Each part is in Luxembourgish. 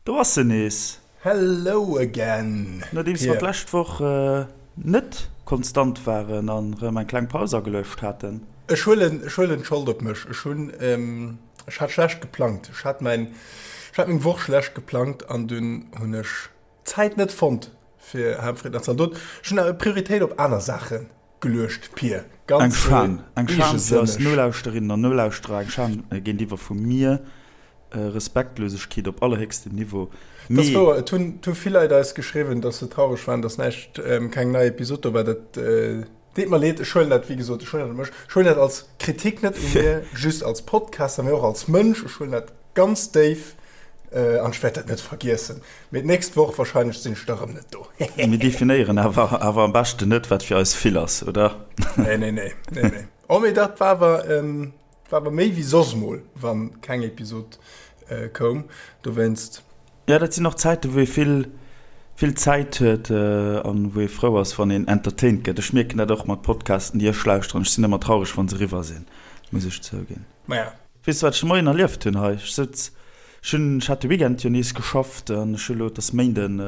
Do ass se nees! Hello again, Nodeems mer Pir. d'lescht Woch net konstant waren an rëm eng kleng Paus ageluecht haten. Ech huelen, ech huelen d'Schold op mech. Ech hunn, ech hat schlecht geplangt. Ech hat mäin, ech hat meng Woch schlecht geplangt an dunn hunn ech d'Zäit net fonnt fir Haaptfried nach ze an dot. Ech hunn awer Prioritéit op aner Saache geluecht, Pir. Eng Ganz Schan, eng Schan fir eis eegesënneg. Nolauschterinnen an Nolauschterer, eng Schan géintiwwer vu mir. Respektlosegkeet op allerhéchstem Niveau. Dat ass Mee. wouer. Et hunn, et hu vill Leit eis geschriwwen, dass se traureg waren, dass näischt, keng nei Episod do war. Dat deet mer leed. Ech huelen dat, wéi gesot, ech huelen dat op mech. Ech huelen dat als Kritik net u mir just als Podcaster, mee och als Mënsch. Ech huelen dat ganz déif an ech wäert dat net vergiessen. Mee d'nächst Woch wahrscheinlech sinn ech da rëm net do. Mir definéieren awer awer am beschten net, wat fir eis vill ass, oder? Nee, nee, nee, nee, nee. Oh, mee dat war awer, War awer méi wéi soss mol wann keng Episod koum, dowéinst. Jo, dat sinn och Zäiten, wou ee vill, vill Zäit huet an wou ee frou ass, wann een entertained gëtt. Ech mierken dat och mat Podcasten, déi ech lauschteren. Ech sinn ëmmer traureg, wa se eriwwer sinn, muss ech zouginn. Maja. Weess de, wat ech de Moien erlieft hunn hei? Ech souz, ech hunn, ech hat de Weekend jo nees geschafft an ech hu lo, et ass Méinden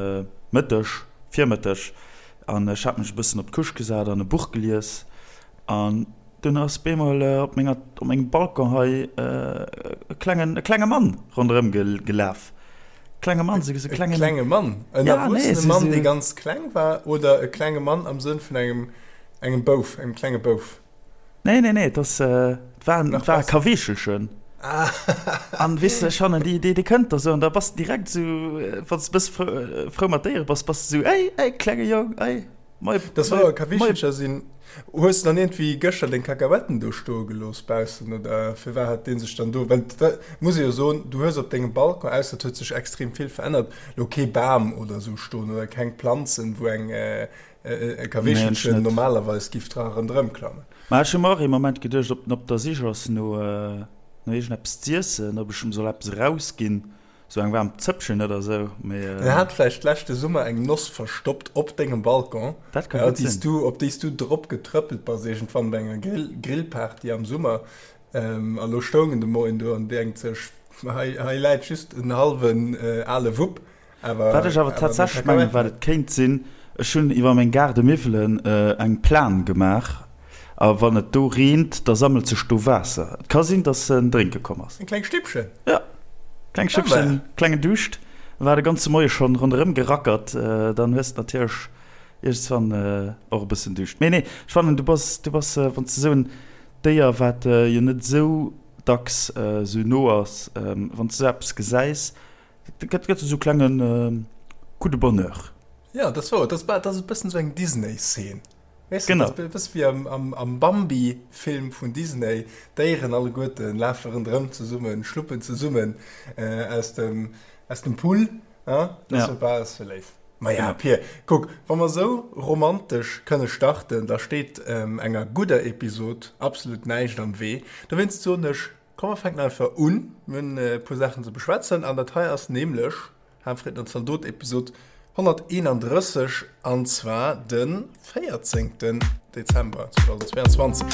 Mëtteg, Virmëtteg, an ech hat mech e bëssen op d'Couche gesat an e Buch gelies an Dunn ass bemol op menger, op mengem Balcon hei e klengen, e klenge Mann ronderëm gelaf. Klenge Mann, sou e klengen. E klenge Mann? En Ja, nee, erwuessene sou, Mann, dee sou. ganz kleng war, oder e klenge Mann am Sënn vun engem, engem Bouf, engem klenge Bouf? Nee, nee, nee, et ass, et war en, Nach et war e besser. Kaweechelchen. Ah. An weess de, ech fannen, déi, déi, déi kënnt da sou an da bass de direkt sou, wann s de e bësse frou, frou mat Déiere bass, bass de sou, Ey, ey, klenge Jong, ey. Moi, Das moi, war moi. Kawischelcher sinn. Hues de dann iergendwéi gëschter deng Kakahuetten do stoe gelooss baussen oder firwat hat dee sech dann do, well dat muss ee jo soen, du hues op dengem Balcon, ausser et huet sech extrem vill verännert, lo kee Bam oder sou stoen oder keng Planzen, wou eng e Nee, ech Kaweechelchen net. normalerweis giff dra ronderëm klammen. Ma ech hu mer och ee Moment geduecht, ob en op der Sich ass no no iergendeppes z'iessen, ob ech em soll eppes erausginn. Sou eng waarm Zëppchen oder sou, mee. En hat vläicht leschte Summer eng Noss verstoppt op dengem Balcon, Dat ka gutt déi s sinn. du, op déi s du drop getrëppelt bass iergendwann bei enger Grill, Grillparty am Summer. A lo stoung en de Moien do an denkt sech, hei, hei läit just en hallwen ale Wupp, awer, Wat ech awer awer meng tatsächlech mengen, Kakahuetten wat net. et kéint sinn, ech hunn iwwer meng Gaardemiwwelen eng Plan gemaach a wann et do reent, da sammelt sech do Waasser. Et ka sinn, dass en drénke komm ass. Eng kleng Stippchen? Jo, kleng Stippchen, klengen Duuscht. War de ganze Moie schonn ronderëm gerackert. Dann hues de natierlech iergendswann och e bëssen Duuscht. Mee nee, ech fannen, du bass, du bass, wann s de esou en Déier, wat jo net esou dacks esou no ass, wann s de esou eppes gesäis, Dat gëtt gëtt esou klengen Coup de bonheur. Ja, dat ass wouer. Dat ass, dat ass e bëssen esou eng Disney-Szene. Weess de, Genau. dat ass e bësse wéi am, am, am Bambi-Film vun Disney. D'Déieren alleguerte lafe ronderëm zesummen, schluppen zesummen aus dem, aus dem Pull. Ah, dat ass Ja. jo bal sou léif. Maja, Genau. Pir, kuck, wa mer esou romantesch kënne starten, da steet enger gudder Episod absolut näischt am Wee. Dowéinst soen ech, Komm mer fänken einfach un, mir hunn e puer Saachen ze beschwätzen an dat hei ass nämlech Haanfreed an Zaldot Episod 131 an zwar de 14 Dezember 2022.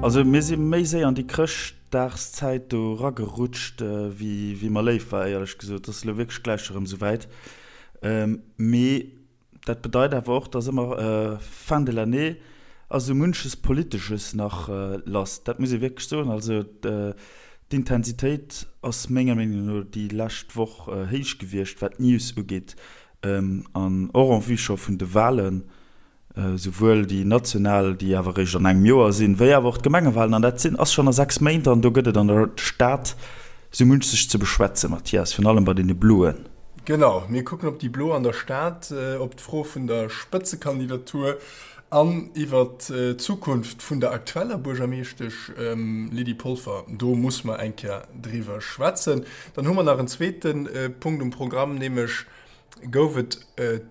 Also mir si méi séier an déi Chrëscht Dagszäit do ragerutscht, wéi mer léif war, éierlech gesot. Et ass elo wierklech gläich erëm esouwäit. Mee dat bedeit awer och, dass ëmmer Fin de l'année ass esou munches Politesches nach lass. Dat muss ee wierklech soen. Also d'Intensitéit ass menger Meenung no déi lescht Woch héich gewiescht, wat d'News ugeet an och en vue scho vun de Wahlen. Souwuel déi national, déi awer eréischt an engem Joer sinn, wéi awer och d'Gemengewahlen. An dat sinn, ass schonn a 6 Méint an do gëtt et an der Stad sou munches ze beschwätzen, Mathias, virun allem bei deene Bloen. Genau, mir kucken op déi Blo an der Stad, op d'Fro vun der Spëtzekandidatur an iwwer d'Zukunft vun der aktueller Buergermeeschtesch Lydie Polfer. Do muss mer eng Kéier driwwer schwätzen. Dann hu mer nach en zweete Punkt um Programm, nämlech gouf et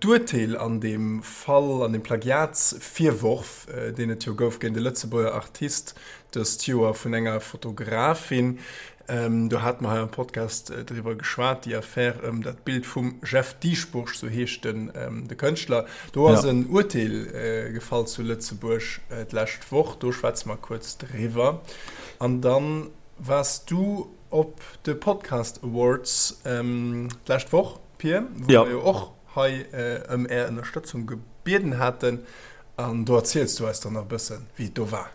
d'Urteel an deem Fall, an deem Plagiatsvirworf, deen et jo gouf géint e Lëtzebuerger Artist dëst Joer vun enger Fotografin. Do hate mer hei am Podcast driwwer geschwat, déi Affär ëm dat Bild vum Jeff Dieschbourg, sou heescht den de Kënschtler. Do ass en Urteel gefall zu Lëtzebuerg d'lescht Woch, do schwätze mer kuerz driwwer. An da waars du op de Podcast Awards d'lescht Woch, Pir, wou mer jo och hei ëm Är Ënnerstëtzung gebieden haten. An do erziels du eis dann nach e bëssen, wéi et do war.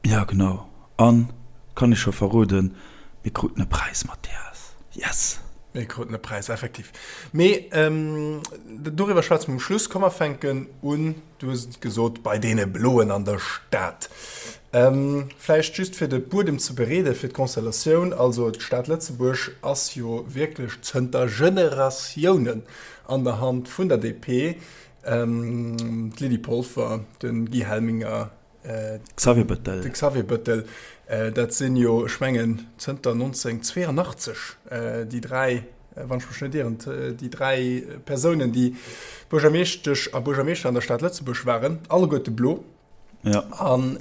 Jo, genau. An, kann ech scho verroden, mir kruten e Präis, Mathias. Yes! Mir kruten e Präis, effektiv. Mee doriwwer schwätze mer um Schluss. Komm, mer fänken un, du hues et gesot, bei deene Bloen an der Stad. Vläicht just fir de Buedem ze bereeden, fir d'Constellatioun. Also d'Stad Lëtzebuerg ass jo wierklech zënter Generatiounen an der Hand vun der DP. D'Lydie Polfer, de Guy Helminger, Xavier Bëttel. De Xavier Bëttel, dat sinn jo, ech mengen, zënter 1982 déi dräi, wann ech mech net ieren, déi dräi Persounen, déi Buergermeeschtesch a Buergermeeschter an der Stad Lëtzebuerg waren, alleguerte blo. Ja. An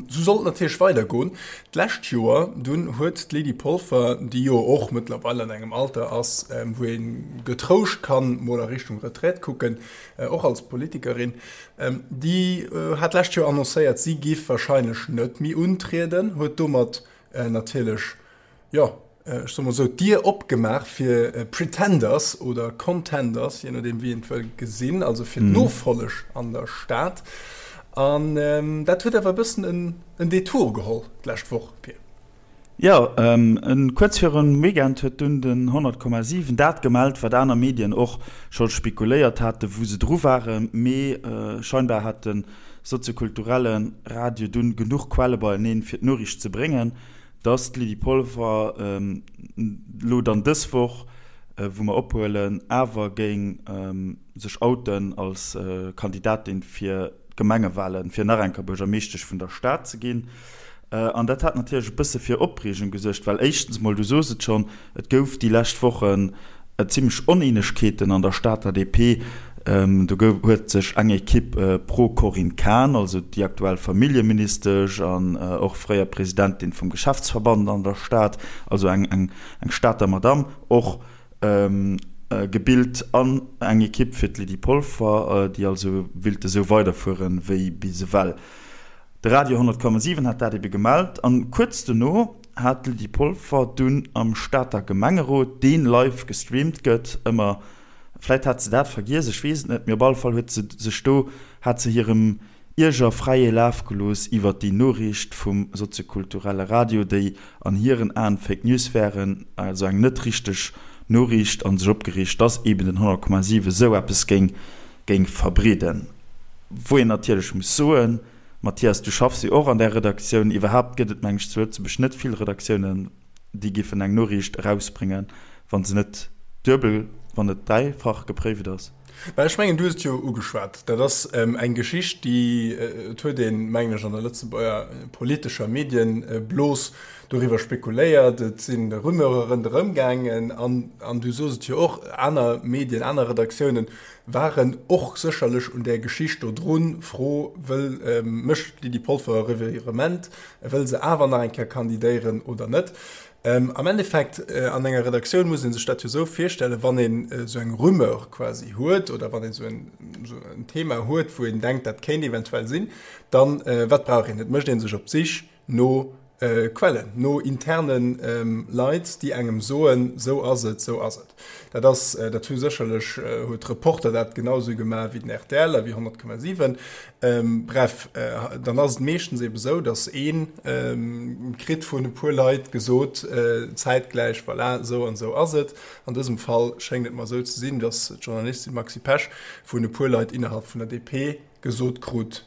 esou soll et natierlech weidergoen. D'lescht Joer dunn huet d'Lydie Polfer, déi jo och mëttlerweil an engem Alter ass, wou ee getrouscht kann mol a Richtung Retraite kucken, och als Politikerin, Déi hat d'lescht Joer annoncéiert, si giff warscheinlech net méi untrieden, huet domat natierlech, jo, ech soe mol esou, d'Dier opgemaach fir Pretenders oder Contenders, jee nodeem wéi een et wëll gesinn, also fir d'Nofolleg an der Stad. An dat huet awer e bëssen en Detour geholl d'lescht Woch, Pir. Jo, kuerz virum Weekend huet dunn den 100,7 dat gemellt, wat aner Medien och scho spekuléiert haten, wou se dru waren. Mee scheinbar hat de soziokulturelle Radio dunn genuch Quelle beieneen, fir d'Noriicht ze bréngen, dass d'Lydie Polfer elo dann dës Woch, wou mer ophuelen, awer géing sech outen als Kandidatin fir d'Gemengewalen, fir nach eng Kéier Buergermeeschtesch vun der Stad ze ginn. An dat hat natierlech e bësse fir Opreegung gesuergt, well éischtens mol, du sos et schonn, et gouf déi lescht Wochen zimmlech Oneenegkeeten an der Stater DP. Do gouf, huet sech eng Ekipp pro Corinne Cahen, also déi aktuell Familljeministesch an och fréier Presidentin vum Geschäftsverband an der Stad, also eng, eng, eng Stater Madamm, och gebilt an eng Ekipp fir d'Lydie Polfer, déi also willt esou weiderfueren, wéi bis ewell. De Radio 10,7 hat dat ebe gemellt an kuerz dono hat d'Lydie Polfer dunn am Stater Gemengerot, deen live gestreamt gëtt, ëmmer, vläit hat se dat vergiess, ech weess et net, mee op alle Fall huet se sech do, hat se hirem Ierger fräie Laf gelooss iwwert déi Noriicht vum soziokulturelle Radio, déi an hiren Aen Fake News wären, also eng net richteg Noriicht, an sech opgereegt, dass eben den 100,7 esou eppes géing géing verbreeden. Wou een natierlech muss soen, Mathias, du schaffs jo och an där Redaktioun, iwwerhaapt gëtt et, meng ech, zu Lëtzebuerg net vill Redaktiounen, déi géifen eng Noriicht erausbréngen, wa se net duebel, wann net dräifach gepréift ass. Mä ech mengen, du hues et jo ugeschwat, dat ass eng Geschicht, déi, et huet een, mengen ech, an der Lëtzebuerger politescher Medienblos doriwwer spekuléiert, et si Rumeure ronderëm gaangen an du sos et jo och, aner Medien, aner Redaktiounen Waren och sécherlech un där Geschicht do drun. Fro, Wëll mécht d'Lydie Polfer e Revirement? Wëll se awer nach eng Kéier kandidéieren oder net? Am Endeffekt, an enger Redaktioun muss ee sech dat jo esou virstellen, wann een esou eng Rumeur quasi huet oder wann een esou en Thema huet, wou een denkt, dat kéint eventuell sinn, dann, wat brauch een? Et mécht ee sech op d'Sich no Quellen, no interne Leit, déi engem soen, sou ass et, sou ass et. Dat ass, dat hu sécherlech, huet Reporter dat genau sou gemaach wéi den rtl a wéi 100,7. Bref, dann ass et meeschtens ebe sou, datt ee kritt vun e puer Leit gesot, zäitgläich, voilà, sou an sou ass et. An dësem Fall schéngt et mer sou ze sinn, datt d'Journalistin Maxi Pesch vun e puer Leit innerhalb vun der DP gesot krut,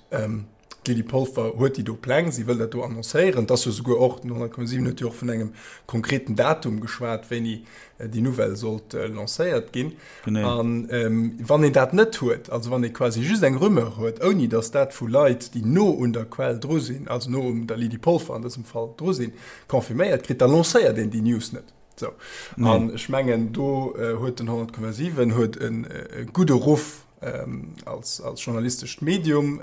D'Lydie Polfer huet déi do Pläng, si wëll dat do annoncéieren. Et ass jo souguer och, den 100,7 huet jo och vun engem konkreten Datum geschwat, wéini déi Nouvelle sollt lancéiert ginn. A wann een dat net huet, also wann ee quasi just eng Rumeur huet, ouni datt dat vu Leit, déi no un der Quell dru sinn, also no un der Lydie Polfer an dësem Fall dru sinn, confirméiert kritt, da lancéiert een déi News net. Sou. An ech mengen, do huet den 100,7 huet e gudde Ruff. als journalistescht Medium.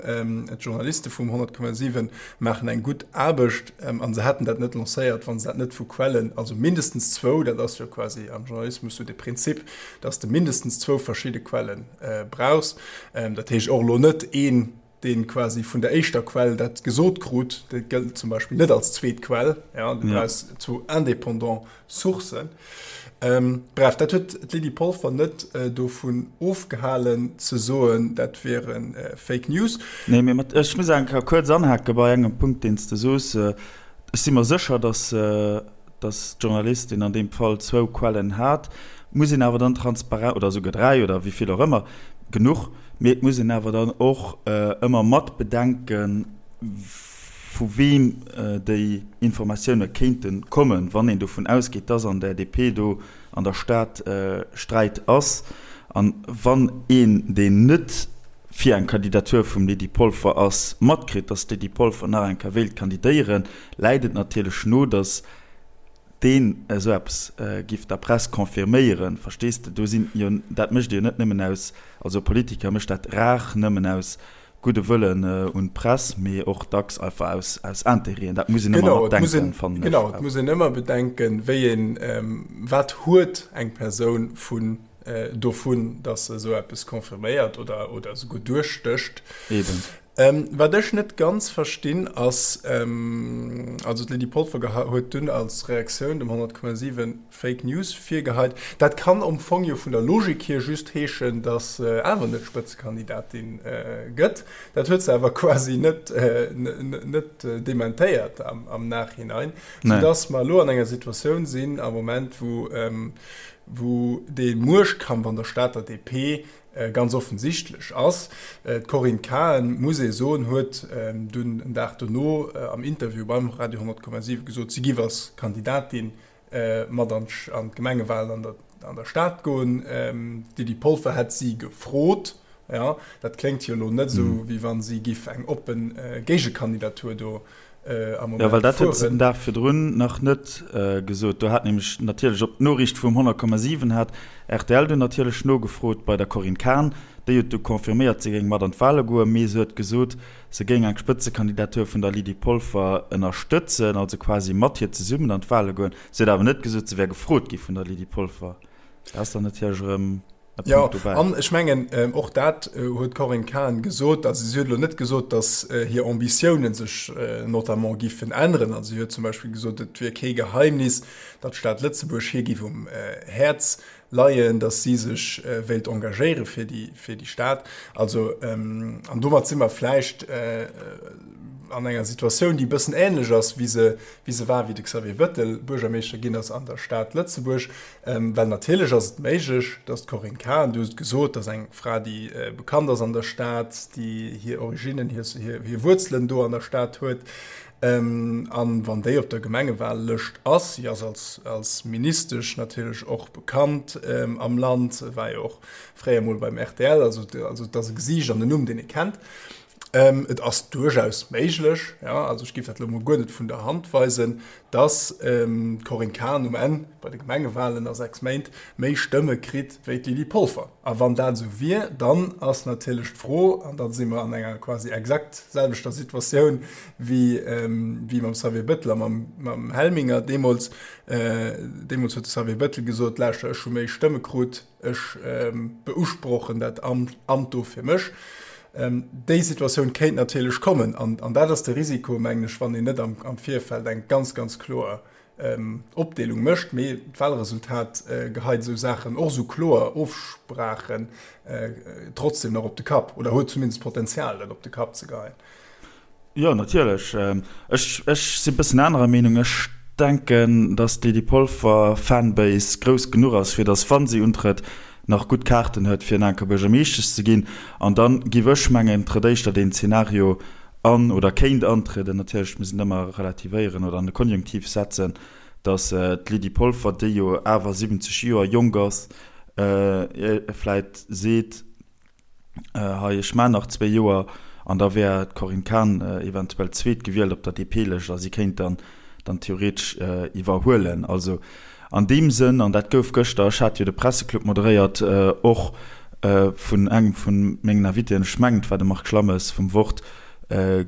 D'Journaliste vum 100,7 maachen eng gutt Aarbecht a se hätten dat net lancéiert, wa se dat net vu Quellen, also mindestens zwou, dat ass jo quasi am Journalismus sou de Prinzip, datt s de mindestens zwou verschidde Quelle brauchs. Dat heescht och elo net een, dee quasi vun der éischter Quell dat gesot krut, dat gëllt zum Beispill net als zweet Quell, ja, du brauchs zwou indépendant Sourcen. Bref, dat huet d'Lydie Polfer net dovun ofgehalen ze soen, dat wiere Fake News. Nee, mee mat, ech muss eng Kéier kuerz anhake bei engem Punkt, deen s de soos. Ech si mer sécher, datt, datt d'Journalistin an deem Fall zwou Quellen hat. Muss een awer dann transparent, oder esouguer dräi oder wéi vill och ëmmer, genuch, mee et muss een awer dann och ëmmer mat bedenken, vu weem déi Informatioune kéinte kommen, wann een dovun ausgeet, dass an der DP do an der Stad Sträit ass. An wann een, deen net fir eng Kandidatur vum Lydie Polfer ass, matkritt, dass d'Lydie Polfer nach eng Kéier wéilt kandidéieren, läit et natierlech no, dass deen esou eppes giff der Press confirméieren. Verstees de? Do sinn jo, dat mécht ee jo net nëmmen aus, also e Politiker mécht dat rar nëmmen aus gudde Wëllen un d'Press, mee och dacks einfach aus, aus Intérêten. Dat muss een ëmmer mat denken, fannen ech. Genau, et muss een ëmmer bedenken, wéi een, wat huet eng Persoun vun, dovun, datt se esou eppes confirméiert oder, oder esouguer duerchstécht. Eben. Wat ech net ganz verstinn ass, also d'Lydie Polfer huet dunn als Reaktioun dem 100,7 Fake News virgeheit. Dat kann am Fong jo vun der Logik hier just heeschen, datt se awer net Spëtzekandidatin gëtt. Dat huet se awer quasi net net dementéiert am Nachhinein, soudatt mer elo an enger Situatioun sinn am Moment, wou wou dee Muechtkampf an der Stater DP ganz offensichtlech ass. D'Corinne Cahen, muss ee soen, huet dunn en Dag dono am Interview beim Radio 100,7 gesot, si giff als Kandidatin mat an d'Gemengewalen an der Stad goen. D'Lydie Polfer hätt si gefrot. Jo, dat kléngt jo elo net esou, wéi wa si giff eng oppe Géigekandidatur do am Moment fueren. Jo, well dat huet se den Dag virdrun nach net gesot. Do hat nämlech natierlech op d'Noriicht vum 100,7 hat rtl dunn natierlech nogefrot bei der Corinne Cahen. Déi huet du confirméiert, si géing mat an d'Wale goen, mee se huet gesot, se géing eng Spëtzekandidatur vun der Lydie Polfer ënnerstëtzen, also quasi mat hir zesummen an d'Wale goen. Se huet awer net gesot, se wär gefrot gi vun der Lydie Polfer. Dat ass dann natierlech erëm e Punkt dobäi. Jo, an ech mengen, och dat huet d'Corinne Cahen gesot. Also si huet elo net gesot, datt hir Ambitiounen sech notamment giffen änneren. Also si huet zum Beispill gesot, et wier kee Geheimnis, datt d'Stad Lëtzebuerg hir giff um Häerz leien, datt si sech wéilt engagéiere fir déi, fir déi Stad. Also, an domat si mer vläicht an enger Situatioun, déi e bëssen ähnlech ass, wéi se, wéi se war, wéi de Xavier Bettel Buergermeeschter ginn ass an der Stad Lëtzebuerg. Well natierlech ass et méiglech, datt d'Corinne Cahen, du hues et gesot, dat ass eng Fra, déi bekannt ass an der Stad, déi hir Originnen, hir, hir Wuerzelen do an der Stad huet, An wann déi op der Gemengewahllëscht ass, si ass als, als Ministesch natierlech och bekannt am Land, war jo och fréier mol beim rtl, also, also et ass e Gesiicht an en Numm, deen ee kennt. Et ass duerchaus méiglech, jo, also ech géif dat elo mol guer net vun der Hand weisen, dass d'Corinne Cahen um Enn bei de Gemengewahlen a 6 Méint méi Stëmme kritt wéi d'Lydie Polfer. A wann dat esou wier, dann ass natierlech d'Fro, an da si mer an enger quasi exakt selwechter Situatioun wéi mam Xavier Bettel a mam Helminger deemools. Deemools huet de Xavier Bettel gesot, Lauschter, ech hu méi Stëmme krut, ech beusprochen dat Amt do fir mech. Déi Situatioun kéint natierlech kommen an dat ass de Risiko, mengen ech, wann een net am Virfeld eng ganz, ganz kloer Opdeelung mécht. Mee d'Wahlresultat geheit esou Saachen, och esou kloer Ofsprachen, trotzdem nach op de Kapp oder huet zumindest d'Potenzial, dat op de Kapp ze geheien. Jo, natierlech. Ech, ech si bëssen anerer Meenung. Ech denken, datt d'Lydie Polfer Fanbase grouss genuch ass, fir datt, wa si untrëtt, nach gutt Kaarten huet, fir en Kéier Buergermeeschtesch ze ginn. An da giff ech mengen, trëtt éischter deen Zeenario an, oder kéint antrieden, natierlech muss een ëmmer relativéieren oder an de Konjunktiv setzen, datt d'Lydie Polfer, déi jo awer 70 Joer jonk ass, vläit seet, Hei, ech maan nach zwéi Joer an da wär d'Corinne Cahen eventuell zweetgewielt op der DP-Lëscht a si kéint dann dann theoretesch iwwerhuelen. Also an deem Sënn, an dat gouf gëschter, ech hat jo de Presseclub moderéiert, och. vun engem vu mengen Invitéen, ech mengen et war de Marc Schlammes vum Wort,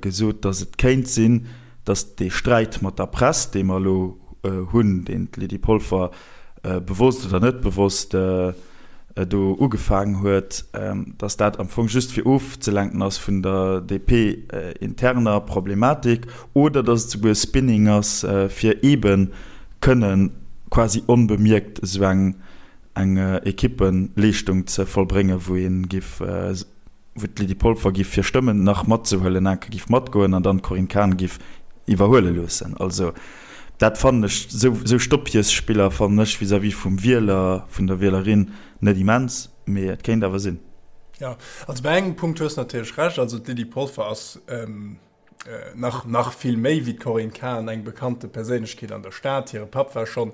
gesot, datt et kéint sinn, datt dee Sträit mat der Press, dee mer elo hunn, deen d'Lydie Polfer bewosst oder net bewosst do ugefaangen huet, datt dat am Fong just fir ofzelenken ass vun der DP-interner Problematik oder datt et souguer Spinning ass, fir eebe kënne quasi onbemierkt esou eng eng Equippeleeschtung ze vollbréngen, wou ee giff, wou d'Lydie Polfer giff fir Stëmmen nach matzehuelen, enke giff matgoen an dann d'Corinne Cahen giff iwwerhuele loossen. Also dat fannen ech, esou esou Stoppjesspiller fannen ech vis-à-vis vum Wieler, vun der Wielerin net immens, mee et kéint awer sinn. Jo, also bei engem Punkt hues de natierlech Recht, also d'Lydie Polfer ass, nach nach vill méi wéi d'Corinne Cahen eng bekannte Perséinlechkeet an der Stad. Hire Papp war schonn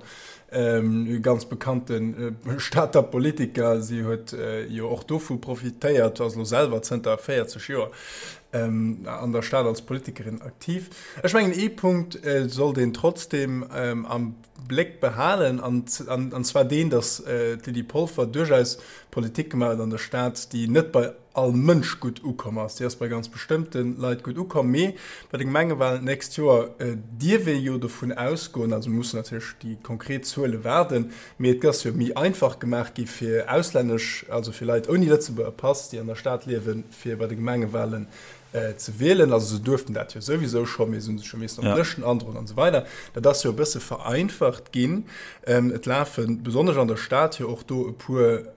e ganz bekannte Stater Politiker. Si huet jo och dovu profitéiert, ass elo selwer zënter 40 Joer an der Stad als Politikerin aktiv. Ech mengen ee Punkt sollt een trotzdeem am Bléck behalen, an an zwar deen, datt d'Lydie Polfer duerchaus Politik gemaach huet an der Stad, déi net bei all Mënsch gutt ukomm ass. Déi ass bei ganz bestëmmte Leit gutt ukomm, mee bei de Gemengewalen d'nächst Joer dierf ee jo dovun ausgoen, also mir mussen natierlech déi konkret Zuele waarden, mee et ass jo méi einfach gemaach gi fir auslännesch, also fir Leit ouni Lëtzebuerger Pass, déi an der Stad liewen, fir bei de Gemengewalen ze wielen. Also se duerften dat jo souwisou scho, mee se hu sech jo missen op Lëschten androen an esou weider. Dat ass jo e bësse vereinfacht ginn. Et lafe besonnesch an der Stad jo och do e puer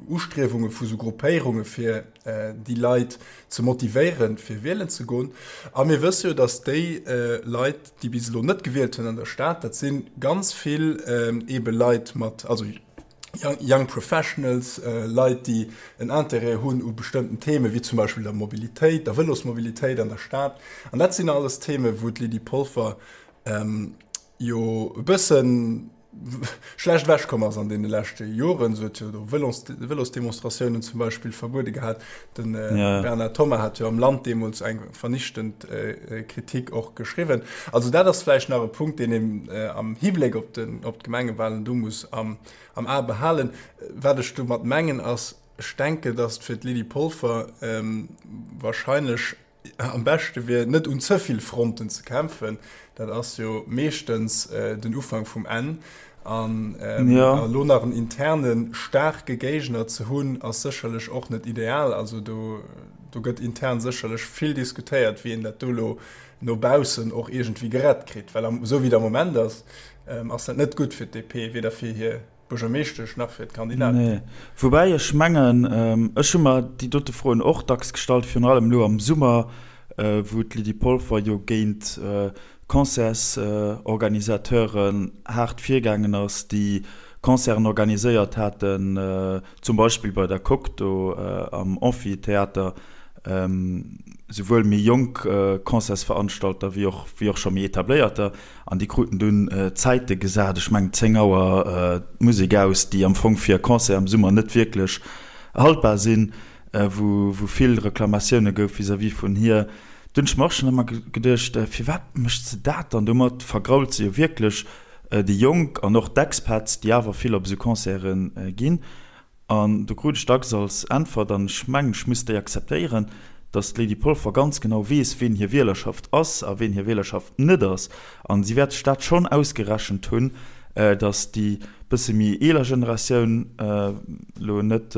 Ustriewunge vu sou Gruppéierunge fir déi Leit ze motivéieren, fir wielen ze goen. A mir wësse jo, datt déi Leit, déi bis elo net gewielt hunn an der Stad, dat si ganz vill eebe Leit mat, also Young Professionals, Leit, déi en Intérêt hunn u bestëmmten Themen, wéi zum Beispill der Mobilitéit, der Vëlosmobilitéit an der Stad. An dat sinn alles Themen, wou d'Lydie Polfer jo e bësse schlecht ewechkomm ass an deene leschte Joren. Se huet jo do Vëlosdemonstratiounen zum Beispill verbuede gehat. De Bernard Thomas hat jo am Land deemools eng vernichtend Kritik och geschriwwen. Also dat ass vläicht nach e Punkt, deen een am Hibléck op d'Gemengewalen do muss am A behalen. Wat ech domat mengen ass, ech denken, datt fir d'Lydie Polfer wahrscheinlech am beschte wier, net un ze vill Fronten ze kämpfen. Dat ass jo meeschtens den Ufank vum Enn. An elo nach en interne staarke Géigner ze hunn, ass sécherlech och net ideal. Also do gëtt intern sécherlech vill diskutéiert, wéi een dat do elo no baussen och iergendwéi gerett kritt. Well esou wéi et am Moment ass, ass dat net gutt fir d'DP, weder fir hir Buergermeeschtesch nach fir d'Kandidaten. Nee. Woubäi ech mengen, ech hu mer déi dote Froen och dacks gestallt, virun allem elo am Summer, wou d'Lydie Polfer jo géint Concertsorganisateuren haart virgaangen ass, déi Concerten organiséiert haten, zum Beispill bei der Coque do am Amphitheater, souwuel méi jonk Concertsveranstalter wéi och wéi och scho méi etabléierter. An déi kruten dunn Zäite gesat, ech mengen 10 Auer d'Musek aus, déi am Fong fir e Concert am Summer net wierklech haltbar sinn, wou vill Reklamatioune gouf vis-à-vis vun hir. Dunn hunn ech mer och schonn ëmmer geduecht, firwat mécht se dat dann? Domat vergrault se jo wierklech déi Jonk an och d'Expats, déi awer vill op esou Concerte ginn. An do krut ech dacks als Äntwert, an ech mengen, ech muss déi akzeptéieren, datt d'Lydie Polfer ganz genau weess, ween hir Wielerschaft ass a ween hir Wielerschaft net ass. A si wäert sech dat schonn ausgerechent hunn, datt déi bësse méi eeler Generatioun elo net,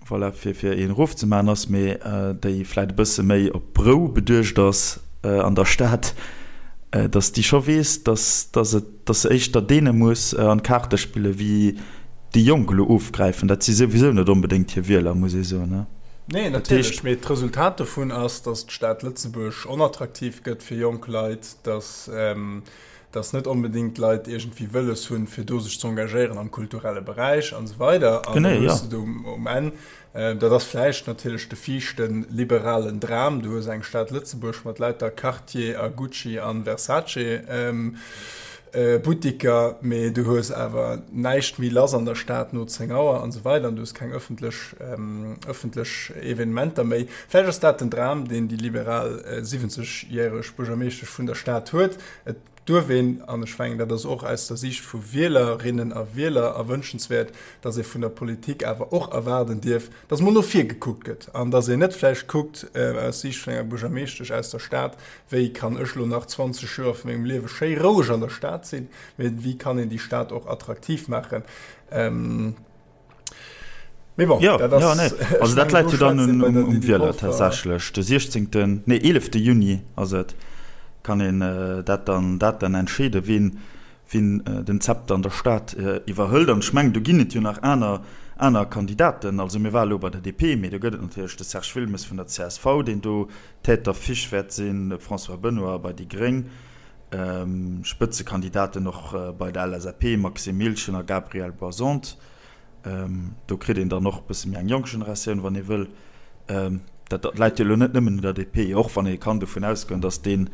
voilà, fir fir een erofzemaachen ass, mee déi vläit e bësse méi op Rou beduecht ass an der Stad, dass déi scho weess, dass dass et dass se éischter deene muss an d'Kaarte spille wéi déi Jonk elo ofgräifen. Dat si souwisou net onbedéngt hir Wieler, muss ee soen, ne? Nee, natierlech, mee d'Resultat dovun ass, dass d'Stad Lëtzebuerg onattraktiv gëtt fir jonk Leit, dass dass net onbedéngt d'Leit iergendwéi wëlles hunn, fir do sech ze engagéieren am kulturelle Beräich an esou weider. An da hues de do um Enn, dat ass vläicht natierlech de viischte liberalen Dram, du hues eng Stad Lëtzebuerg mat lauter Cartier a Gucci a Versace Buttiker, mee du hues awer näischt méi lass an der Stad no 10 Auer an esou weider an du hues keng ëffentlech ëffentlech Evenementer méi. Vläicht ass dat den Dram, deen déi liberal 70 järeg Buergermeeschtesch vun der Stad huet. Et. Duerf een, an ech mengen, dat ass och aus der Siicht vu Wielerinnen a Wieler erwënschenswäert, dass ee vun der Politik awer och erwaarden dierf, dass mol no vir gekuckt gëtt an dass een net vläicht kuckt aus Siicht vun enger Buergermeeschtesch aus der Stad, wéi kann ech elo nach 20 Joer vu mengem Liewe schéi roueg an der Stad sinn, mee wéi kann een déi Stad och attraktiv maachen. Mee bon, ja, dat ass, ja, nee. Also dat läit jo dann un, um, um Wieler tatsächlech. De 16., nee 11. Juni ass et, kann een äh, dat dann, dat dann entscheeden, wien, wien äh, den Zepter an der Stad äh, iwwerhëlt. An ech mengen, do ginn et jo nach aner, aner Kandidaten. Also mir ware lo bei der DP, mee do gëtt et natierlech de Serge Wilmes vun der csv, deen do Tête d'affiche wäert sinn, de François Benoy bei déi Gréng, ähm, Spëtzekandidaten och äh, bei der LSAP, Maxime Miltgen a Gabriel Boisante. Do kritt een dann och e bësse méi eng jonk Generatioun, wann ee wëll. Dat läit jo elo net nëmmen un der DP, och wann ee kann dovun ausgoen, datt deen,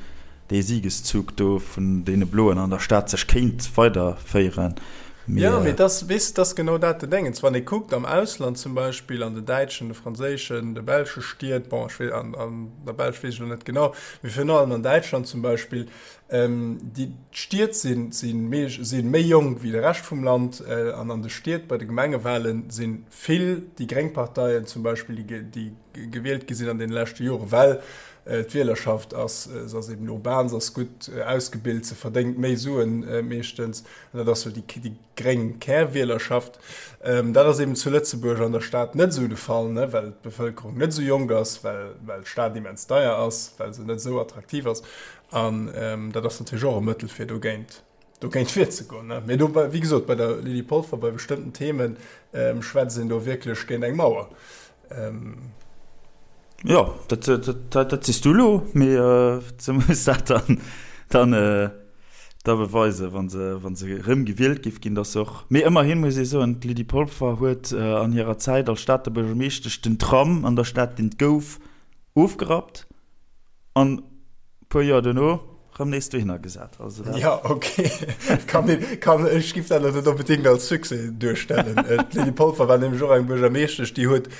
dee Siegeszug do vun deene Bloen an der Stad sech kéint weiderféieren. Mee. Jo, mee et ass, weess de, et ass genau dat de Déngens. Wann ee kuckt am Ausland zum Beispill, an den däitschen, de franséischen, de belsche Stied, bon, ech wee, an der Belsch weess ech elo net genau, mee virun allem an Däitschland zum Beispill, Déi Stied si méi jonk wéi de Rescht vum Land an an de Stied bei de Gemengewale si vill déi gréng Parteien zum Beispill, déi gewielt gi sinn an deene leschte Jore well d'Wielerschaft ass, se ass eben urban, se ass gutt ausgebilt, se verdéngt méi Suen meeschtens an dat ass sou déi gréng Kärwielerschaft. Dat ass eben zu Lëtzebuerg an der Stad net esou de Fall, well d'Bevëlkerung net esou jonk ass, well d'Stad immens deier ass, well se net esou attraktiv ass. An dat ass natierlech och e Mëttel, fir dogéint, dogéint virzegoen. Mee do, wéi gesot, bei der Lydie Polfer, bei bestëmmten Themen schwätzt een do wierklech géint eng Mauer. Jo, dat, dat, dat sees du elo, mee se muss dat dann, dann, da beweisen, wa se, wa se erëm gewielt géif ginn, datt se och. Mee ëmmerhin muss ee soen, d'Lydie Polfer huet an hirer Zäit als Stater Buergermeeschtesch den Tram an der Stad, deen et gouf, ofgerappt. An puer Joer duerno rëm nees dohinner gesat. Also dat. Ja, okay. Kann een, kann, ech giff dat elo net onbedéngt als Succès duerstellen. D'Lydie Polfer war nämlech och eng Buergermeeschtesch, déi huet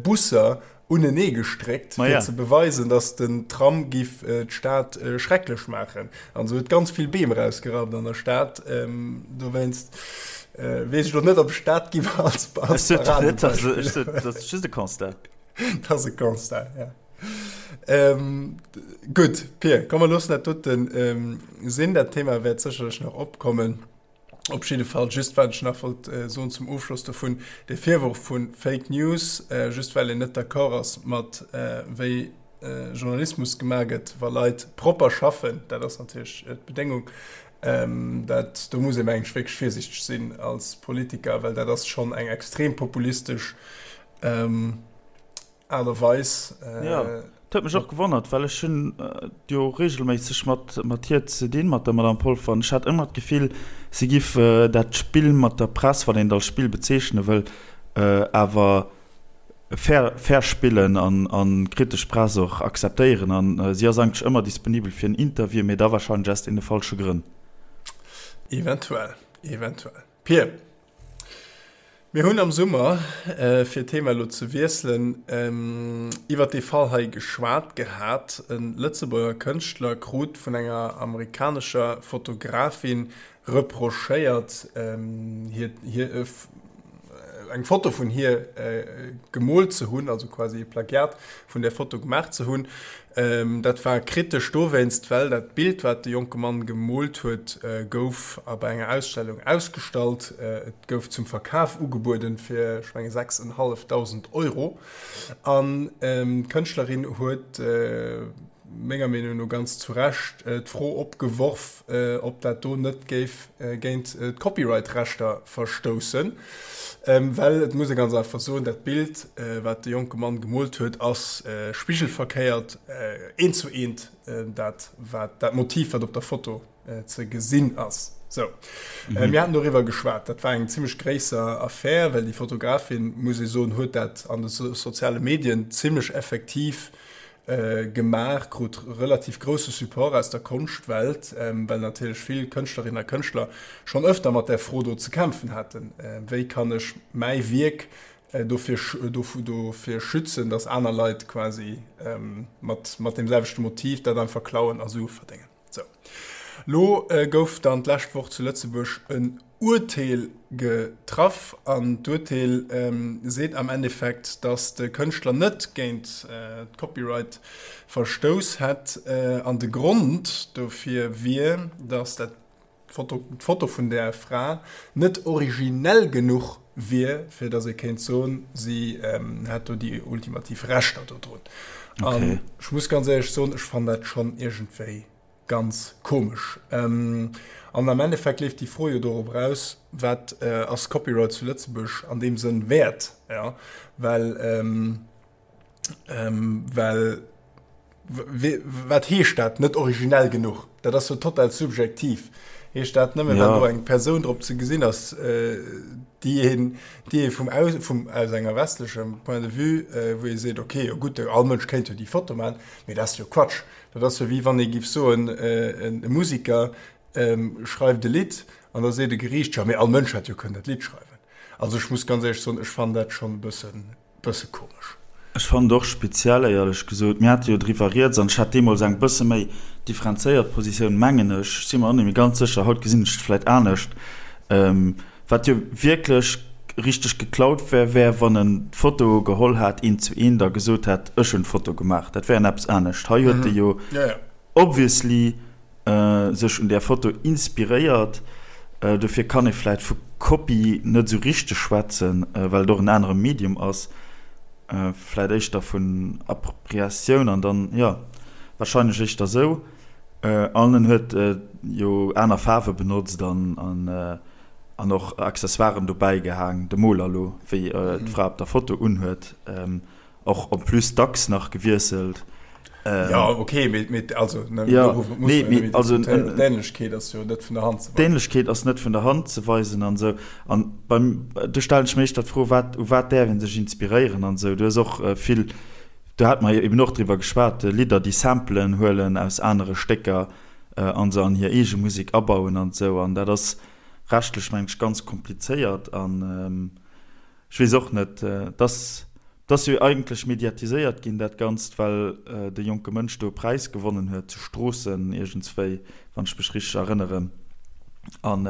Busser unenee gestréckt, fir ze beweisen, datt den Tram giff d'Stad schrecklech maachen. An se huet ganz vill Beem erausgerappt an der Stad. Dowéinst weess ech elo net, ob ech dat giff als Paradebeispill. Dat ass just e Constat. Dat ass e Constat, ja. Ähm, gutt, Pir, komm mer loossen dat doten ähm, sinn. Dat Thema wäert sécherlech nach opkommen. Op jidde Fall, just wat ech nach wollt äh, soen zum Ofschloss dovun, de Virwurf vu Fake News, äh, just well een net d'accord ass mat äh, wéi äh, Journalismus gemaach gëtt, wa Leit propper schaffen, dat ass natierlech äh, d'Bedéngung, ähm, dat, do muss ee mengen ech wierklech virsichteg sinn als Politiker, well dat ass schonn eng extrem populistesch ähm, Aart a Weis. Jo, dat huet mech och gewonnert, well ech hunn jo reegelméisseg mat mat hir ze dinn, mat der Madame Polfer, an ech hat ëmmer d'Gefill, si giff dat Spill mat der Press, wann een et als Spill bezeechne wëll, awer fair fair spillen an an kritesch Press och akzeptéieren. An si ass eigentlech ëmmer disponibel fir en Interview, mee da warscheinlech aus deene falsche Grënn. Eventuell, eventuell. Pir, Mir hunn am Summer, fir d'Thema elo ze wiesselen, iwwert dee Fall hei geschwat gehat. E Lëtzebuerger Kënschtler krut vun enger amerikanescher Fotografin reprochéiert, hir eng Foto vun hir gemoolt ze hunn, also quasi e Plagiat vun där Foto gemaach ze hunn. Dat war kritesch dowéinst, well dat Bild, wat de jonke Mann gemoolt huet, gouf a bei enger Ausstellung ausgestallt. Et gouf zum Verkaf ugebueden fir, ech menge 6.500 Euro. An d'Kënschtlerin huet, menger Meenung no ganz zu Recht, d'Fro opgeworf, ob dat do net géif géint d'Copyright-Rechter verstoussen. Well et muss ee ganz einfach soen, dat Bild, wat de jonke Mann gemoolt huet, ass spigelverkéiert, eent zu eent dat, wat dat Motiv, wat op der Foto ze gesinn ass. Sou, mir haten doriwwer geschwat. Dat war eng zimmlech gréisser Affär, well déi Fotografin, muss ee soen, huet dat an de soziale Medien zimmlech effektiv gemaach, krut relativ grousse Support aus der Konschtwelt, well natierlech vill Kënschtlerinnen a Kënschtler schonn ëfter mat där Fro do ze kämpfen haten, Wéi kann ech mäi Wierk dofir dofir schützen, datt aner Leit quasi mat mat deem selwechte Motiv dat einfach klauen a Sue verdéngen? Sou. Lo gouf dann d'lescht Woch zu Lëtzebuerg en Urteel getraff an d'Urteel seet am Endeffekt, datt de Kënschtler net géint d'Copyright verstouss hätt an de Grond dofir wier, datt dat d'Foto vun där Fra net originell genuch wier, fir datt ee kéint soen, si hätt do déi ultimativ Rechter dodrun. An ech muss ganz éierlech soen, ech fannen dat schonn iergendwéi Ganz komesch. An am Endeffekt leeft déi Fro jo dorop eraus, Wat ass Copyright zu Lëtzebuerg an deem Sënn wäert? Jo, well, well wat heescht dat, net originell genuch? Dat ass jo total subjektiv. Heescht dat nëmmen, wann do eng Persoun drop ze gesinn ass, déi een, déi ee vum, vum, aus enger westlechem Point de vue, wou ee seet, okay, jo gutt, all Mënsch kéint jo déi Foto maachen, mee dat ass jo Quatsch. Dat ass jo wéi wann ee giff soen, e Musiker schreift e Lidd an da seet e Geriicht, jo mee all Mënsch hätt jo kënnen dat Lidd schreiwen. Also ech muss ganz éierlech soen, ech fannen dat schonn e bëssen, bësse komesch. Ech fannen et och speziell, éierlech gesot. Mir hate jo driwwer rieds an ech hat deemools eng bësse méi differenzéiert Positioun, mengen ech. Ech si mer och net méi ganz sécher, haut gesinn ech et vläit anescht. Wat jo wierklech richteg geklaut wär, wär wann en d'Foto geholl hat eent zu eent a gesot hätt, ech hunn d'Foto gemaach. Dat wär en eppes anescht. Hei huet e jo obviously sech un där Foto inspiréiert. Dofir kann ee vläit vu Kopie net esou richteg schwätzen, well et och en anere Medium ass. Vläit éischter vun Appropriatioun an dann, jo, warscheinlech éischter esou. An en huet jo aner Faarwe benotzt an an och Accessoiren dobäi gehaang, de Moler elo, wéi d'Fra op der Foto unhuet, och en plus dacks nach gewiesselt. Jo, ok, mee also, nee, mee also d'Ähnlechkeet ass jo net vun der Hand ze weisen. D'Ähnlechkeet ass net vun der Hand ze weisen an esou. An beim, do stellen ech mir éischter d'Fro, wat, u wat däerf ee sech inspiréieren an esou. Du hues och vill, do hate mer jo eben och driwwer geschwat, Lidder, déi Samplen huelen aus anere Stécker a se an hir eege Musek abauen an esou. An dat ass rechtlech, mengen ech, ganz komplizéiert. An ech weess och net, et ass, et ass jo eigentlech mediatiséiert ginn, dat Ganzt, well de jonke Mënsch do e Präis gewonnen huet zu Stroossen iergendswéi, wann ech mech richteg erënneren. An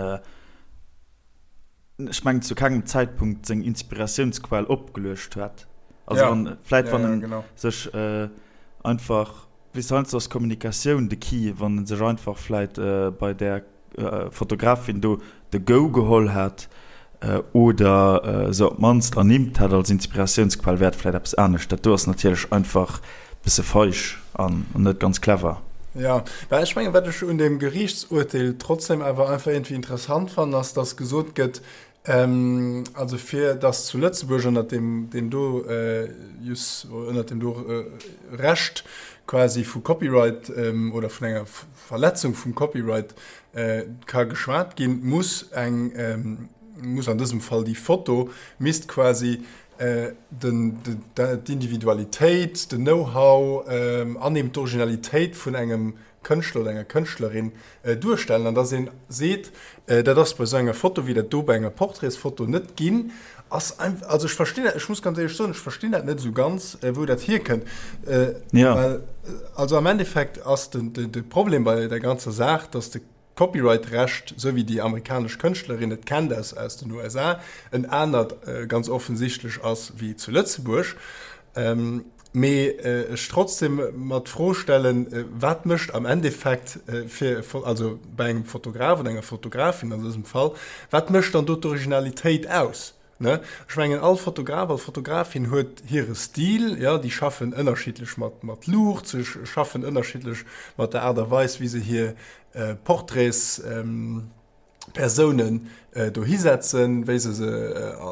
ech mengen, zu kengem Zäitpunkt seng Inspiratiounsquell opgeluecht huet. Also ja. wann, vläit ja, wann ja, en genau. sech äh, einfach, weess heiansdo ass Kommunikatioun de Key, wann en sech einfach vläit äh, bei där äh, Fotografin do de Go geholl hätt äh, oder äh, se op d'mannst ernimmt hätt als Inspiratiounsquell, wär et vläit eppes anescht. Dat do ass natierlech einfach bësse feig an net ganz clever. Ja, well ech mengen, wat ech un deem Geriichtsurteel trotzdem awer einfach iergendwéi interessant fannen, ass, dass gesot gëtt, also fir dass zu Lëtzebuerg ënnert deem, deem do Jus, ënnert deem do Recht quasi vu Copyright oder vun enger Verletzung vum Copyright ka geschwat ginn, muss eng, muss an dësem Fall déi Foto misst quasi d'Individualitéit, den Know-how an eben d'Originalitéit vun engem Kënschtler oder enger Kënschtlerin duerstellen. An dass ee seet, dat ass bei esou enger Foto wéi dat do bei enger Portraitsfoto net ginn, ass einfach, also ech verstinn dat, ech muss ganz éierlech soen, ech verstinn dat net esou ganz, wou dat hierkënnt. Well also am Endeffekt ass de Problem bei der ganzer Saach, dass de Copyright-Recht, esou wéi déi amerikanesch Kënschtlerin et kennt aus aus den USA, en anert ganz offensichtlech ass wéi zu Lëtzebuerg. Mee ech trotzdem mer d'Fro stellen, wat mécht am Endeffekt fir, also bei engem Fotograf oder enger Fotografin an dësem Fall, wat mécht dann do d'Originalitéit aus? Ne? Ech mengen, all Fotograf, all Fotografin huet hire Stil, jo, déi schaffen ënnerschiddlech mat, mat Luucht, se schaffen ënnerschiddlech mat der Aart a Weis, wéi se hir Portraits Persounen dohi setzen, wéi se se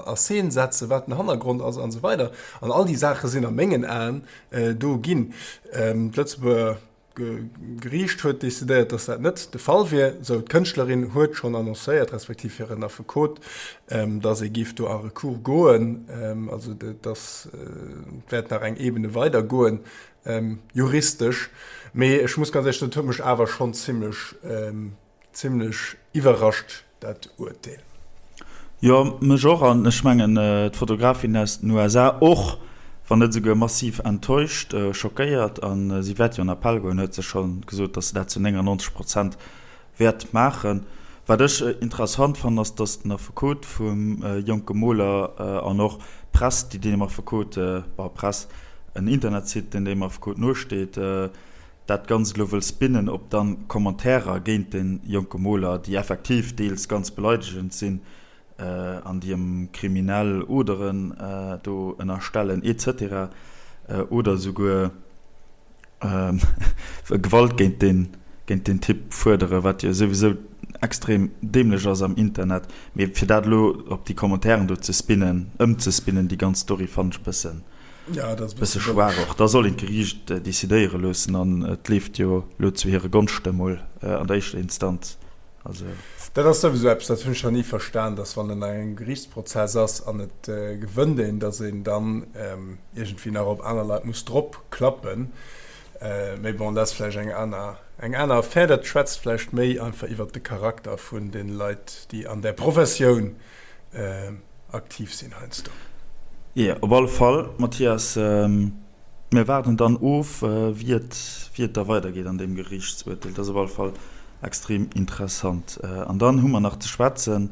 a Scene setzen, wat den Hannergrond ass an esou weider. An all déi Saache sinn a mengen Aen do ginn. D'Lëtzebuerger Geriicht huet decidéiert, datt dat net de Fall wier. Sou, d'Kënschtlerin huet schonn annoncéiert, respektiv hiren Affekot, datt ee géif do a Recours goen. Also datt wäert nach eng Ebene weider goen, juristesch. Mee ech muss ganz éierlech soen, et huet mech awer schonn zimmlech Zimlech iwwerrascht dat Urteel. Jo, mech och, an ech mengen d'Fotografin aus den USA och, wann net esouguer massiv enttäuscht, schockéiert. A si wäert jo an Appell goen, huet se scho gesot, datt se dat zu 99 Prozent. Wäert maachen. Wat ech interessant fannen, ass, datt den Affekot vum jonke Moler an och d'Press, déi deem Affekot, bon, Press, en Internetsite, deen deem Affekot nosteet, dat Ganzt elo wëll spinnen op dann Commentairer géint de jonke Moler, déi effektiv deels ganz beleidegend sinn an déi em kriminell Oderen do ënnerstellen et cetera oder esouguer Gewalt géint deen, géint deen Typ fuerderen, wat jo souwisou extrem dämlech ass am Internet. Mee fir dat elo op déi Commentairen do ze spinnen, ëmzespinnen, déi ganz Story, fannen ech e bëssen, Ja, dat ass e bësse schwaach och. Da soll een d'Geriicht decidéiere loossen an et leeft jo elo zu hire Gonschte mol an der éischter Instanz. Also. Dat ass souwisou eppes, dat hunn ech nach ni verstan, dass wann en an engem Geriichtsprozess ass an et gewënnt een, dass een dann iergendwéi nach op aner Leit muss drop klappen. Mee bon, dat ass vläicht eng aner, eng aner Affär. Dat schwätzt vläicht méi einfach iwwert de Charakter vun de Leit, déi an där Professioun aktiv sinn heiansdo. Jo, op alle Fall, Mathias. Mir waarden dann of, wéi et, wéi et da weidergeet an deem Geriichtsurteel. Dat ass op alle Fall extrem interessant. An dann hu mer nach ze schwätzen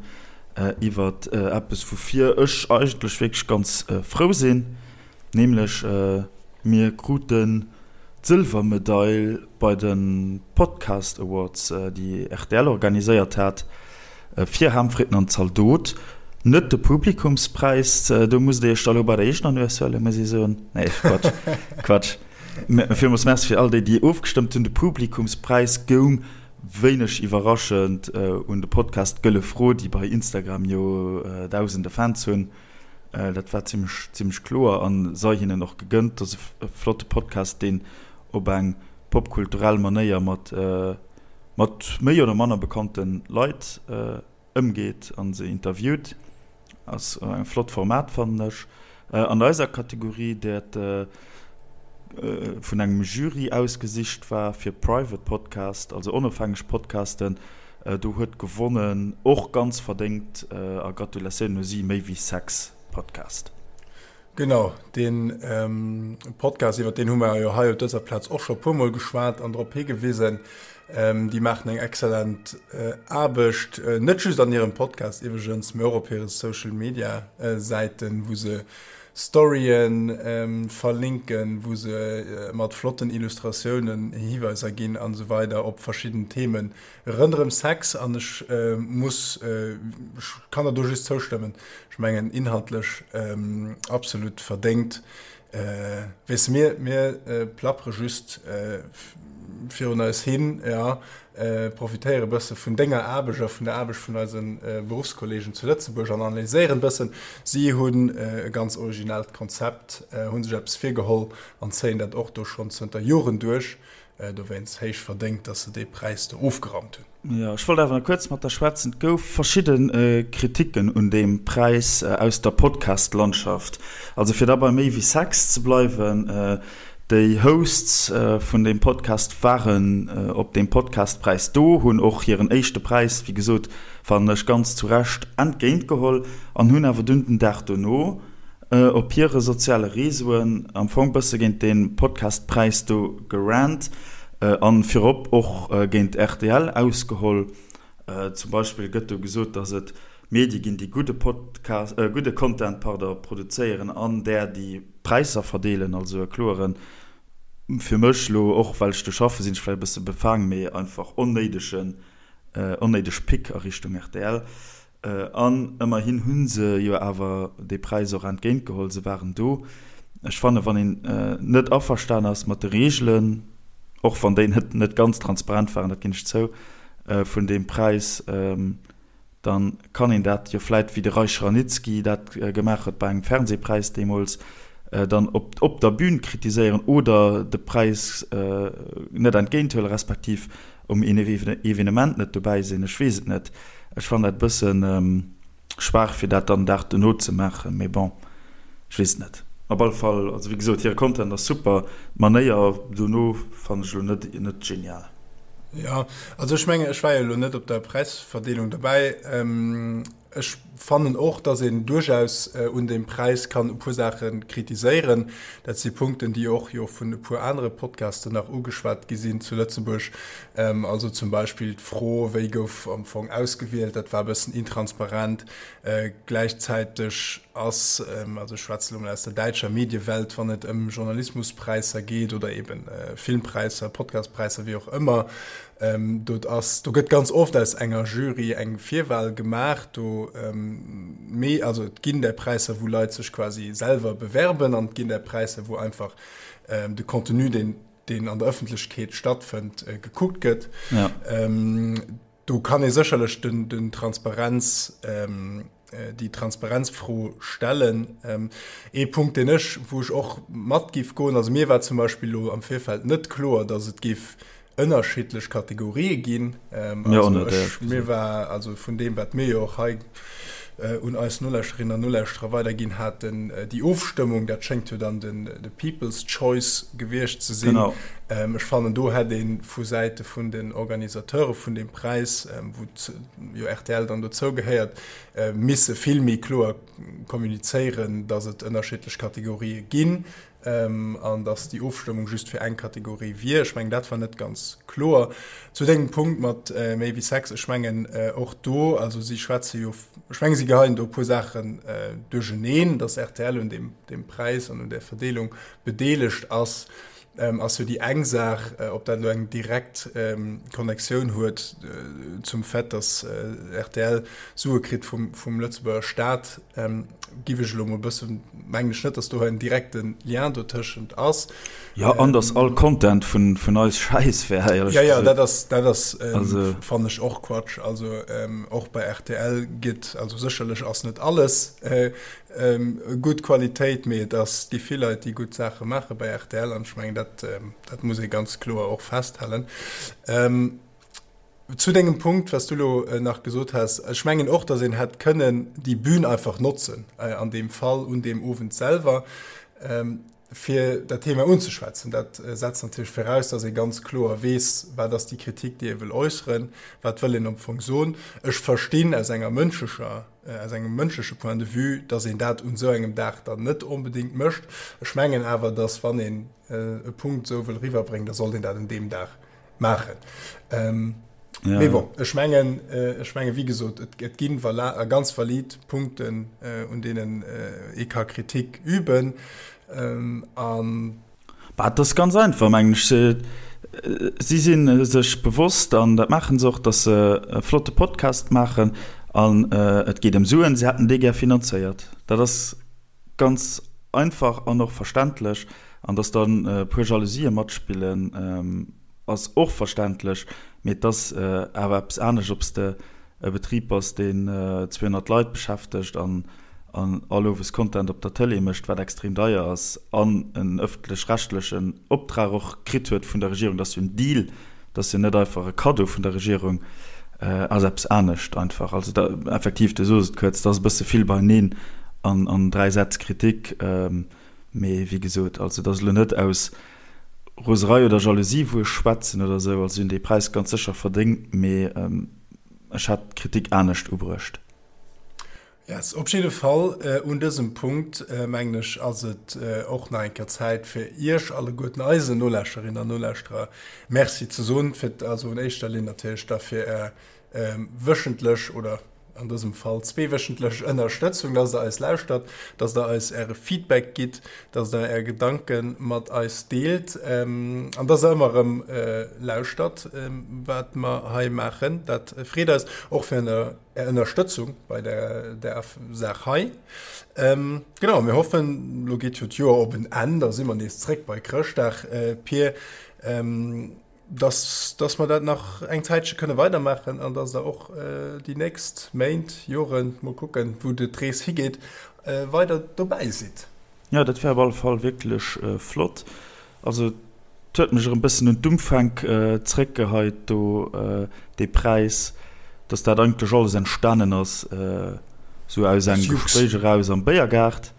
iwwer eppes, woufir ech eigentlech wierklech ganz frou sinn, nämlech mir kruten d'Sëlwermedail bei de Podcast Awards, déi rtl organiséiert hat. Fir Ham, Fritten an Zaldot, net de Publikumspräis, do musst Dir Iech da lo bei der eegener Nues huelen, muss ech soen. Nee, Quatsch, Quatsch. Villmools Merci fir all déi, déi ofgestëmmt hunn. De Publikumspräis goung, wéineg iwwerraschend, un de Podcast Gëlle Fro, déi bei Instagram jo dausende Fans hunn. Dat war zimmlech, zimmlech kloer a sei hinnen och gegënnt. Dat ass e flotte Podcast, deen op eng popkulturell Manéier mat mat méi oder manner bekannte Leit ëmgeet a se interviewt. Ass e flott Format fannen ech. An eiser Kategorie, dat vun engem Jury ausgesicht war fir Private Podcast, also onofhängeg Podcasten, do huet gewonnen, och ganz verdéngt a Gratulatioun u si, Méi wéi Sex Podcast. Genau, dee Podcast, iwwer deen hu mer jo hei op dëser Plaz och scho e puermol geschwat an drop higewisen. Déi maachen eng exzellent Aarbecht, net just an hirem Podcast iwwregens, mee och op hire Social-Media-Säiten, wou se Storyen verlinken, wou se mat flotten Illustratiounen Hiweiser ginn an esou weider op verschidden Themen Ronderëm Sex, an ech muss, ech kann der do just zoustëmmen, ech mengen inhaltlech absolut verdéngt. Weess de, mir, mir plappere just virun eis hin, jo, profitéiere bësse vun denger Aarbecht a vun der Aarbecht vun eise Beruffskolleegen zu Lëtzebuerg an analyséieren bëssen. Si hunn e ganz originellt Konzept, hu sech eppes virgeholl an zéien dat och do schonn zënter Joren duerch. Dowéinst héich verdéngt, dass se dee Präis do ofgeraumt hunn. Jo, ech wollt awer nach kuerz mat der schwätzen. Et gouf verschidde Kriticken un deem Präis aus der Podcast-Landschaft. Also fir da bei méi wéi Sex ze bleiwen, déi Hosts vun deem Podcast waren op deem Podcast-Präis do, hunn och hiren éischte Präis, wéi gesot, fannen ech ganz zu Recht, entgéintgeholl an hunn awer dunn den Dag dono, op hire soziale Reseauen am Fong bësse géint dee Podcast-Präis do gerant an virop och géint rtl ausgeholl. Zum Beispill gëtt do gesot, datt et Medie ginn, déi gudde Podcast, gudde Content, pardon, produzéieren an där, déi Präisser verdeelen. Also e kloeren, fir mech elo, och well ech do schaffe sinn ech vläicht e bësse befaang, mee einfach onnéidegen, onnéideg Pick a Richtung rtl. An ëmmerhin hu se jo awer dee Präis och entgéintgeholl, se waren do. Ech fannen, wann een net averstan ass mat de Reegelen, och wann déi net net ganz transparent waren, dat ginn ech zou, vun deem Präis, da kann een dat jo vläit, wéi de Reich Ranicki dat gemaach huet bei engem Fernsehpräis deemools, dann op op der Bühn kritiséieren oder de Präis net entgéinthuelen, respektiv um Evenement net dobäi sinn. Ech weess et net. Ech fannen dat e bëssen schwaach fir dat dann den Dag dono ze maachen, mee bon, ech weess et net. Op alle Fall, also wéi gesot, hire Content ass super, d'Manéier dono fannen ech elo net net genial. Jo, also ech mengen, ech war jo elo net op der Präisverdeelung dobäi. Ech fannen och, dass een duerchaus un deem Präis kann e puer Saache kritiséieren. Dat si Punkten, déi och jo vun e puer anere Podcasten nach ugeschwat gi sinn zu Lëtzebuerg. Also zum Beispill d'Fro, wéi gouf am Fong ausgewielt, dat war e bëssen intransparent. Gläichzäiteg ass, also ech schwätze elo mol aus der däitscher Mediewelt, wann et ëm Journalismuspräisser geet oder eeben Filmpräisser, Podcastpräisser, wéi och ëmmer, Do ass, do gëtt ganz oft aus enger Jury eng Virwahl gemaach. Do, mee also et ginn där Präisser, wou Leit sech quasi selwer bewerben an et ginn där Präisser, wou einfach de Contenu, deen, deen an der Ëffentlechkeet stattfënnt, gekuckt gëtt. Ja. Do kann ee sécherlech den, den Transparenz, déi Transparenzfro stellen. Ee Punkt, deen ech, wou ech och mat géif goen, also mir war zum Beispill elo am Virfeld net kloer, datt et géif ënnerschiddlech Kategorië ginn. Also ech, mir war, also vun deem, wat mir jo och hei un eis Nolauschterinnen an Nolauschterer weiderginn haten, déi Ofstëmmung, dat schéngt jo dann den, de People's Choice gewiescht ze sinn. Ech fannen, do hätt ee vu Säite vun den Organisateure vun deem Präis, wou jo rtl dann dozou gehéiert, misse vill méi kloer kommunizéieren, datt et ënnerschiddlech Kategorië ginn an datt déi Ofstëmmung just fir eng Kategorie wier. Ech mengen, dat war net ganz kloer. Zu dengem Punkt mat méi wéi Sex, ech mengen och do, also si schwätze jo, ech mengen, si geheien do e puer Saachen duercheneen, datt rtl un deem Präis an un där Verdeelung bedeelegt ass. Ass jo déi eng Saach, ob dat elo eng direkt Connectioun huet zum Fait, datt rtl Sue kritt vum Lëtzebuerger Staat, giff ech elo mol e bëssen, mengen ech net, datt do en direkte Lien dotëschent ass. Jo, an datt all Content vun eis Schäiss wär, éierlech gesot. Jo, jo, dat ass, dat ass, fannen ech och Quatsch. Also och bei rtl gëtt, also sécherlech ass net alles Gutt Qualitéit, mee et ass, gi vill Leit, déi gutt Saache maache bei rtl an ech mengen, dat, dat muss ee ganz kloer och festhalen. Zu dengem Punkt, wat s du elo nach gesot has, ech mengen och, datt een hätt kënnen déi Bühn einfach notzen, an deem Fall un deem Owend selwer, fir dat Thema unzeschwätzen. Dat setzt natierlech viraus, datt ee ganz kloer weess, wat ass déi Kritik, déi ee wëll äusseren, wat wëll een am Fong soen. Ech verstinn aus enger mënschlecher aus engem mënschleche Point de vue, dass een dat un esou engem Dag dann net onbedéngt mécht. Ech mengen awer, dass wann een e Punkt esou wëll eriwwerbréngen, da sollt een dat un deem Dag maachen. Ja. Mee bon, ech mengen, ech mengen, wéi gesot, et, et ginn ganz valid Punkten, un deenen ee ka Kritik üben. An. Bah, et ass ganz einfach, mengen ech. Si si sech bewosst, an dat maache se och, datt se e flotte Podcast maachen an et geet ëm Suen. Si hätten dee gär finanzéiert. Dat ass ganz einfach an och verständlech. An datt dann e puer Jalousië matspillen, ass och verständlech. Mee et ass awer eppes anescht, ob s de e Betrib bass, deen 200 Leit beschäftegt an an all Owes Content op der Tëlee mécht, wat extrem deier ass, an en ëffentlech-rechtlechen Optrag och kritt huet vun der Regierung, dat ass jo en Deal, dat ass jo net einfach e Kaddo vun der Regierung, ass eppes anescht einfach. Also da, effektiv, du sos et kuerz, dat ass e bësse vill beieneen an an 3 Sätz Kritik, mee wéi gesot, also dat ass elo net aus Roserei oder Jalousie wou ech schwätzen oder esou, also si hunn dee Präis ganz sécher verdéngt, mee ech hätt d'Kritik anescht ubruecht. Yes, op jidde Fall un dësem Punkt, mengen ech, ass et och nach eng Kéier Zäit fir Iech alleguerten, eisen Nolauschterinnen an Nolauschterer, Merci ze soen, fir, also un éischter Linn natierlech da fir Är wéchentlech oder an dësem Fall zweewéchentlech Ënnerstëtzung, dass Der eis lauschtert, dass Der eis Äre Feedback gitt, dass Der Är Gedanke mat eis deelt an dass Der ëmmer erëm lauschtert, wat mer hei maachen. Dat freet eis och fir Är Ënnerstëtzung bei der der Saach hei. Genau, mir hoffen, lo geet jo d'Joer op en Enn, da si mer nees zréck bei Chrëschtdag, Pir, dass, dass mer dat nach eng Zäitche kënne weidermaachen an dass Der och déi nächst Méint, Joren, mol kucken, wou d'Rees higeet, weider dobäi sidd. Jo, dat wär op alle Fall wierklech flott. Also et huet mech erëm bëssen un d'Umfänk zréckgeheit do, dee Präis, dass dat eigentlech alles entstanen ass, sou aus engem Gespréich eraus am Béiergaart.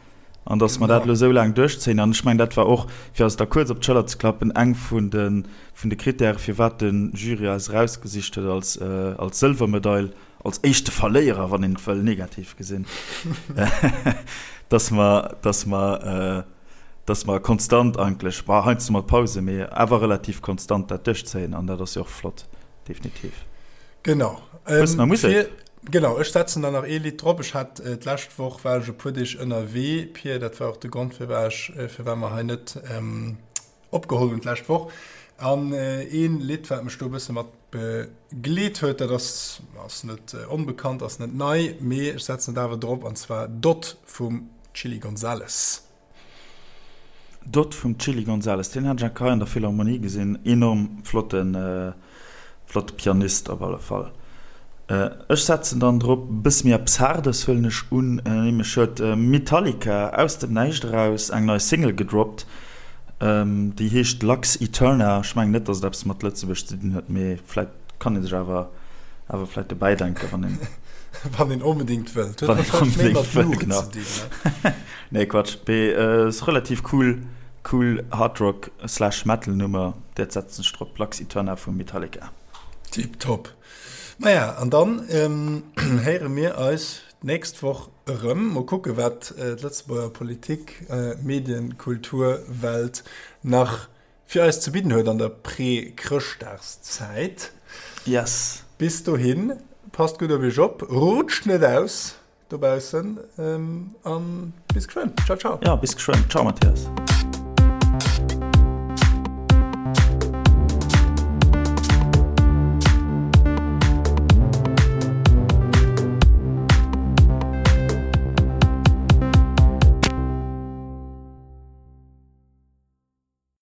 An dass mer dat elo esou laang duerchzéien. An ech mengen, dat war och, fir eis da kuerz op d'Schëller ze klappen, eng vun de, vun de Krittäre, firwat de Jury eis erausgesicht huet als, als Sëlwermedail, als éischte Verléierer, wann een et wëll negativ gesinn, dass mer, dass mer, dass mer konstant eigentlech, bon, heiansdo mat Pause, mee awer relativ konstant dat duerchzéien. An dat ass jo och flott, definitiv. Genau. Hues nach Musek? Genau, ech setzen der nach ee Lidd drop. Ech hat d'lescht Woch war ech e puer Deeg ënnerwee, Pir, dat war och de Grond firwat ech, firwat mer hei net opgeholl hunn d'lescht Woch. An een Lidd wat mech do e bësse mat begleet huet, dat ass, ass net onbekannt, ass net nei, mee ech setzen et awer drop, an zwar Dot vum Chilly Gonzales. Dot vum Chilly Gonzales, deen hat ech eng Keier an der Philharmonie gesinn, enorm flotten, flotte Pianist op alle Fall. Ech setzen dann drop e bësse méi eppes Haardes huelen ech un, nämlech huet Metallica aus dem Näischt eraus eng nei Single gedroppt, déi heescht Lux Aeterna. Ech mengen net, datt et eppes mat Lëtzebuerg ze dinn huet, mee vläit kann ee sech awer awer vläit dobäi denken, wann een. Wann een onbedéngt wëllt. Huet wahrscheinlech méi mat Luucht ze dinn, ne? Nee, Quatsch. Mee ass relativ cool, cool Hard Rock slash Metal Nummer. Dat setzen ech drop, Lux Aeterna vu Metallica. Tiptop. Maja, an dann héiere mir eis d'nächst Woch erëm. Mol kucke wat d'Lëtzebuerger Politik, Medien, Kultur, Welt nach fir eis ze bidden huet an der Prä-Chrëschtdagszäit. Yes. Bis dohin, passt gutt op iech op, rutscht net aus dobaussen an bis geschwënn. Ciao, ciao. Ja, bis geschwënn. Ciao, Mathias.